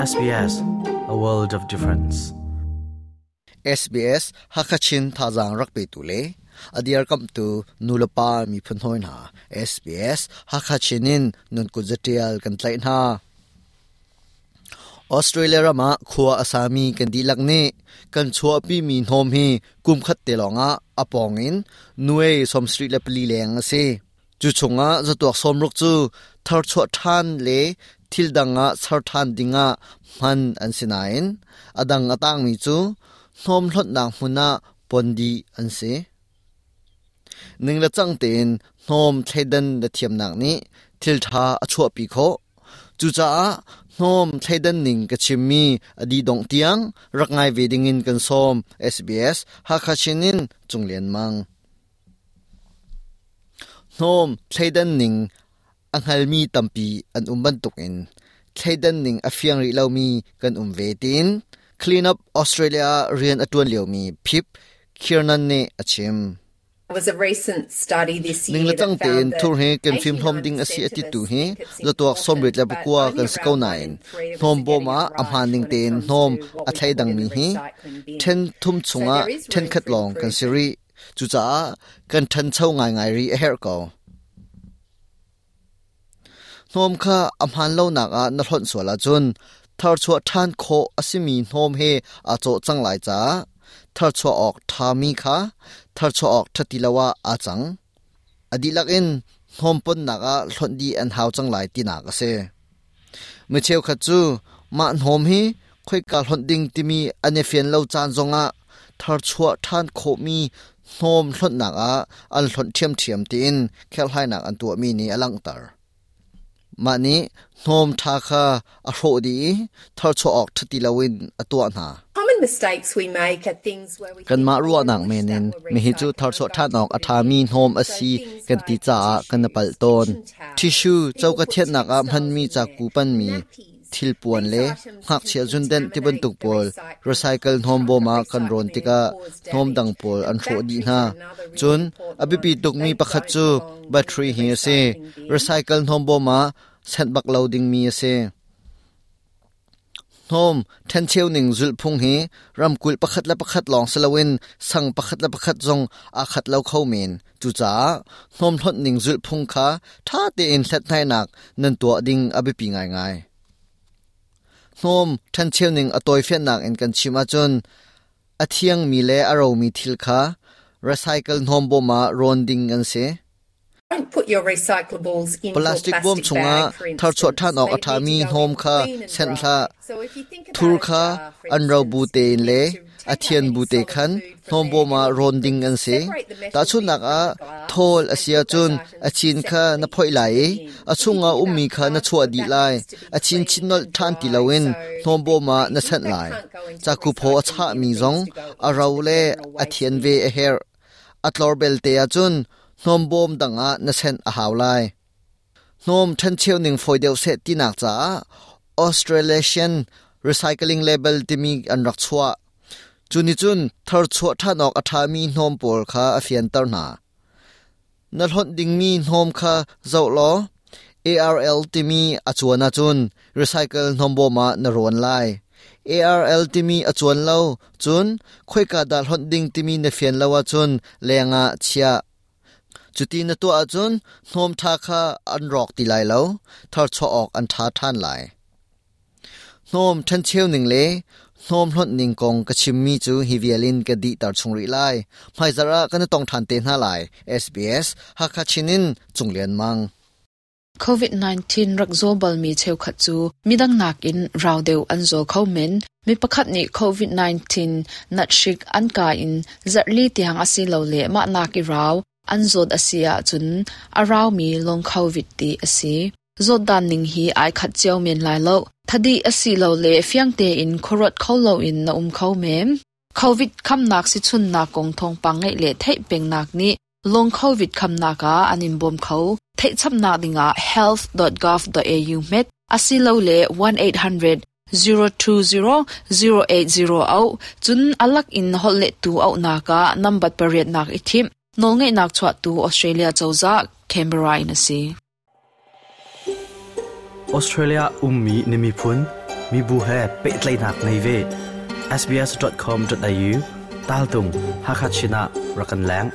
SBS, a world of difference. SBS Hakachin thazaang rak petu le a dirkamhtu nulepa miphun hawi hna SBS Hakachin in nun kut zatial kan tlaih hna. Australia ram ah khua a sami kan dihlak nih kan chuahpimi hnawm hi kum khat te lawngah a pawng in nuai 74 leng a si. Cu chungah zatuak 60 cu tharchuah ṭhan le thil dang ah ser ṭhan dingah hman an si nain a dang a tangmi cu hnawm hlonhnak hmun ah pon dih an si. Ning le cang tein hnawm thleidan na thiamnak nih thil ṭha a chuahpi khawh. Cucaah hnawm thleidan ning ka chimmi a dih dongh tiang rak ngai ve dingin kan sawm. SBS Hakha Chin in Cung Lian Mang. Hnawm thleidan ning a hngalmi tampi an um bantukin thleidan ning a fiang rih lomi kan um ve tiin Clean Up Australia ah rian a ṭuan liomi Pip Kiernan nih a chim. Ning le cang tein thur hi kan fimhlawm ding a si a titu hi zatuak 89 kan si ko nain hnawm bawm ah a hmaan ning tein hnawm a thleidangmi hi ṭhen thum chungah ṭhenkhat lawng kan si rih. Cucaah kan ṭhancho ngaingai rih a herh ko. Hnawm kha a hmaan lonak ah na hlonh sual ahcun tharchuah ṭhan khawh a simi hnawm he aa cawh cang lai caah tharchuah awk ṭhami kha tharchuah awk ṭha ti lo ah aa cang. A dihlak in hnawm ponnak ah hlonh dih an hau cang lai tinak a si. Mi cheukhat cu mah hnawm hi khoika hlonh ding timi an i fian lo caan zongah tharchuah ṭhan khawhmi hnawm hlonhnak ah an hlonh ṭhiamṭhiam tiin kherhhlainak an tuahmi nih a langhter. Mah nih hnawm ṭha kha a hrawh dih i tharchuah awk ṭha ti loin a tuah hna. Kanmah ruahnak men in mihi cu tharchuah ṭhan awk a ṭhami hnawm a si kan ti caah kan i palh tawn. Tissue coka thianhnak ah hmanmi caku panmi thilpuan le ngakchia zundenh tibantuk pawl recycle hnawm bawm ah kan rawn tikah hnawm dang pawl an hrawh dih hna. Cun a biapi tukmi pakhat cu battery hi a si. Recycle hnawm bawm ah senh bak lo dingmi a si. Hnawm ṭhencheu ning zulhphung hi ramkulh pakhat le pakhat lawng si loin sang pakhat le pakhat zong aa khat lo kho men. Cucaah hnawm hlonh ning zulhphung kha ṭha tein hlathlainak nan tuah ding a biapi ngaingai. Hnawm ṭhencheu ning a tawifiannak in kan chim ahcun a thiangmi le a romi thil kha recycle hnawm bawm ah rawn ding an si. Plastic bawm chungah tharchuah ṭhan awk a ṭhami hnawm kha senh hlah. Thur kha an ro bu tein le a thian bu te khan hnawm bawm ah rawn ding an si. Tahchunhnak ah, thawl a si ahcun a chin kha na phoih lai i a chungah ummi kha na chuah dih lai. A chin chin nolh ṭhan ti loin hnawm bawm ah na senh lai. Caku phaw a chahmi zong a ro le a thian ve a herh. A tlor belte ahcun hnawmbawm dang ah na senh a hau lai. Hnawm ṭhencheu ning fawi deuh seh tinak caah Australasian Recycling Label timi an rak chuah. Cu nih cun tharchuah ṭhan awk a ṭhami hnawm pawl kha a fianter hna. Na hlonh dingmi hnawm kha zoh law ARL timi a cuan ahcun recycle hnawmbawm ah na rawn lai. ARL timi a cuan lo cun khoika dah hlonh ding timi na fian lo ahcun leng ah chiah. Cuti na tuah ahcun hnawm ṭha kha an rawk ti lai lo, tharchuah awk an ṭha ṭhan lai. Hnawm ṭhencheu ning le hnawm hlonh ning kong ka chimmi cu hi vial in ka dihter chung rih lai. Hmaizarh ah kan i tong ṭhan te hna lai. SBS Hakha Chin in Cung Lian Mang. COVID-19 rak zaw balmi cheukhat cu midang nakin rau deuh an zaw kho men. Mi pakhat nih COVID-19 nathrik an kai in zarhli tiang asilole mah nak i rau an zawt a si ahcun a raumi long COVID ti a si. Zawtdan ning hi ai khat cio men lai lo. Thadih asilole fiang tein khuaruat kho loin na um kho men. COVID khamnak sichunnak kong thawngpang ngeih le theih pengnak nih long COVID khamnak ah an in bawm kho. Theihchapnak dingah health.gov.au hmet asilole 1800 020 080 auh cun alak in holhlettu auhnak ah nambat pariatnak i thimh. Nawlngeihnak chuahtu Australia cozah Canberra in a si. Australia ummi na miphun, Mibu he pehtlaihnak ngei ve. sbs.com.au tal tung Hakha Chin ah rak kan leng.